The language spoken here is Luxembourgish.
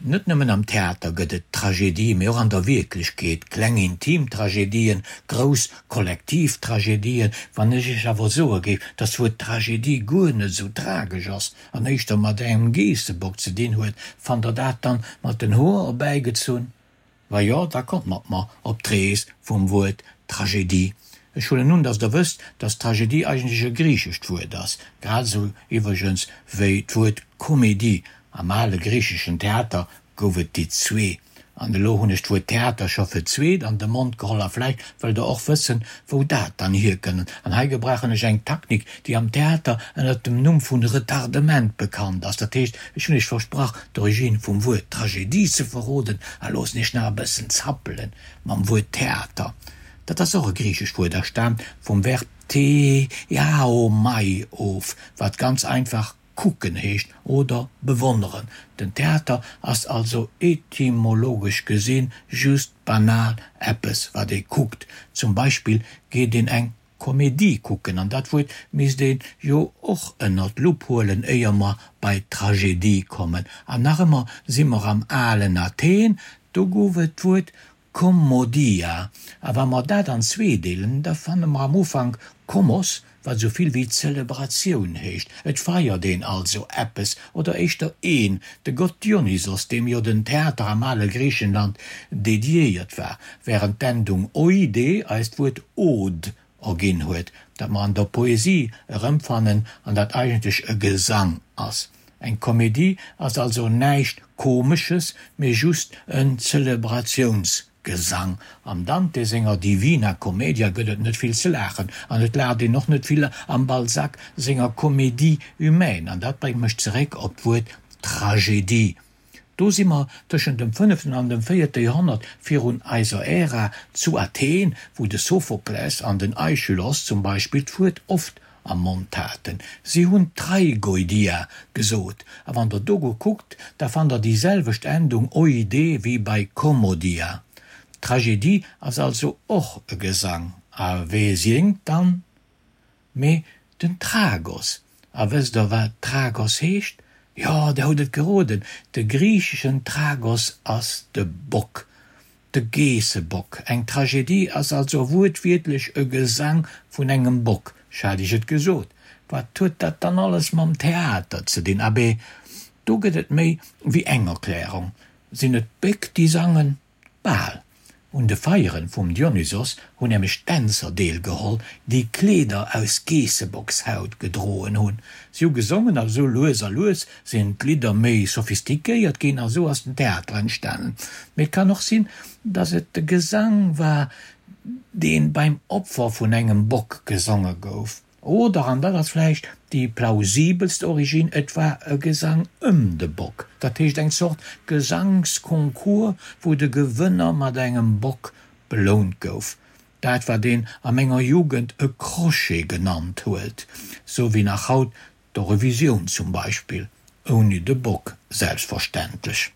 Net nëmmen am Theater gëtt et Tragedie, mee och an der Wierklechkeet, kleng intim Tragedien, grouss kollektiv Tragedien. Wann ech Iech awer soe géif, datt d'Wuert Tragedie guer net esou tragesch ass an éischter mat engem Geessebock ze dinn huet, fannt Der dat dann mat den Hoer erbäigezunn? Wa jo, da kommt mat mer op d'Rees vum Wuert Tragedie. Ech huelen un, datt Der wësst, datt Tragedie eigentlech e griichescht Wuert ass, grad esou iwwregens wéi d'Wuert Komedie. Am ale griicheschen Theater gouf et déi zwee. An elo hunn ech d'Wuert Theater scho fir d'zweet an de Mond geholl a vläicht wëllt Der och wëssen, wou dat dann hierkënnt. An hei gebrauchen ech eng Taktik, déi am Theater ënnert dem Numm vun Retardement bekannt ass. Dat heescht, ech hunn Iech versprach, d'Origine vum Wuert Tragedie ze verroden a loossen Iech nach e bëssen zappelen mam Wuert Theater. Dat ass och e griichescht Wuert a staamt vum Verb theaomai of, wat ganz einfach kucken heescht oder bewonneren. Den Theater ass also etymologesch gesinn just banal eppes wat ee kuckt. Zum Beispill geet een eng Komedie kucken an dat Wuert misst ee jo och ënner d'Lupp huelen éier mer bei d'Tragedie kommen. An nach ëmmer si mer am alen Athen, do gouf et d'Wuert Kommodia, a wa mer dat an zwee deelen, da fanne mer am Ufank Kommos, wat esou vill wéi Zelebratioun heescht. Et feiert een also eppes, oder éischter een, de Gott Dionysos, deem jo den Theater am ale Griichenland dediéiert war, wärend d'Endung oide eis d'Wuert Ode erginn huet, dat mer an der Poesie erëmfannen an dat eigentlech e Gesang ass. Eng Komedie ass also näischt Komesches, mee just en Zelebratiounsgesang. Am Dante senger Divina Commedia gëtt et net vill ze laachen, an et laacht een och net vill am Balzac senger Comédie humaine. An dat bréngt mech zeréck op d'Wuert Tragedie. Do si mer tëschent dem fënneften an dem véierte Joerhonnert virun eiser Ära zu Athen, wou de Sophokles an den Aischylos zum Beispill d'Wuert oft am Mond haten. Si hunn Traigoidia gesot. A wann der do gutt kuckt, da fannt der déi selwecht Endung oide wéi bei Kommodia. D'Tragedie ass also och e Gesang. A wee séngt dann? Mee den Tragos, a wësst der wat Tragos heescht? Jo, der hutt et geroden, de griicheschen Tragos ass de Bock, de Geessebock. Eng Tragedie ass also wuertwiertlech e Gesang vun engem Bock, ech hat iech et gesot. Wat huet dat dann alles mam Theater ze dinn? Abee, do gëtt et méi wéi eng Erklärung. Sinn et d'Béck déi sangen? Bal. Un de Feieren vum Dionysos hunn nämlech Dänzer deelgeholl, déi Kleeder aus Geessebockshaut gedroen hunn. Si hu gesongen a sou lues a lues sinn d'Lidder méi sophistiquéiert ginn a sou ass den Theater entstanen. Mee et kann och sinn, datt et de Gesang war, dee beim Opfer vun engem Bock gesonge gouf. Oder, an dat ass vläicht déi plausibelst Originn, et war e Gesang ëm de Bock, dat heescht eng Zort Gesangsconcours, wou de Gewënner mat engem Bock belount gouf. Dat wat een a menger Jugend e Crochet genannt huet, sou wéi nach haut d'Eurovisioun zum Beispill, ouni de Bock selbstverständlech.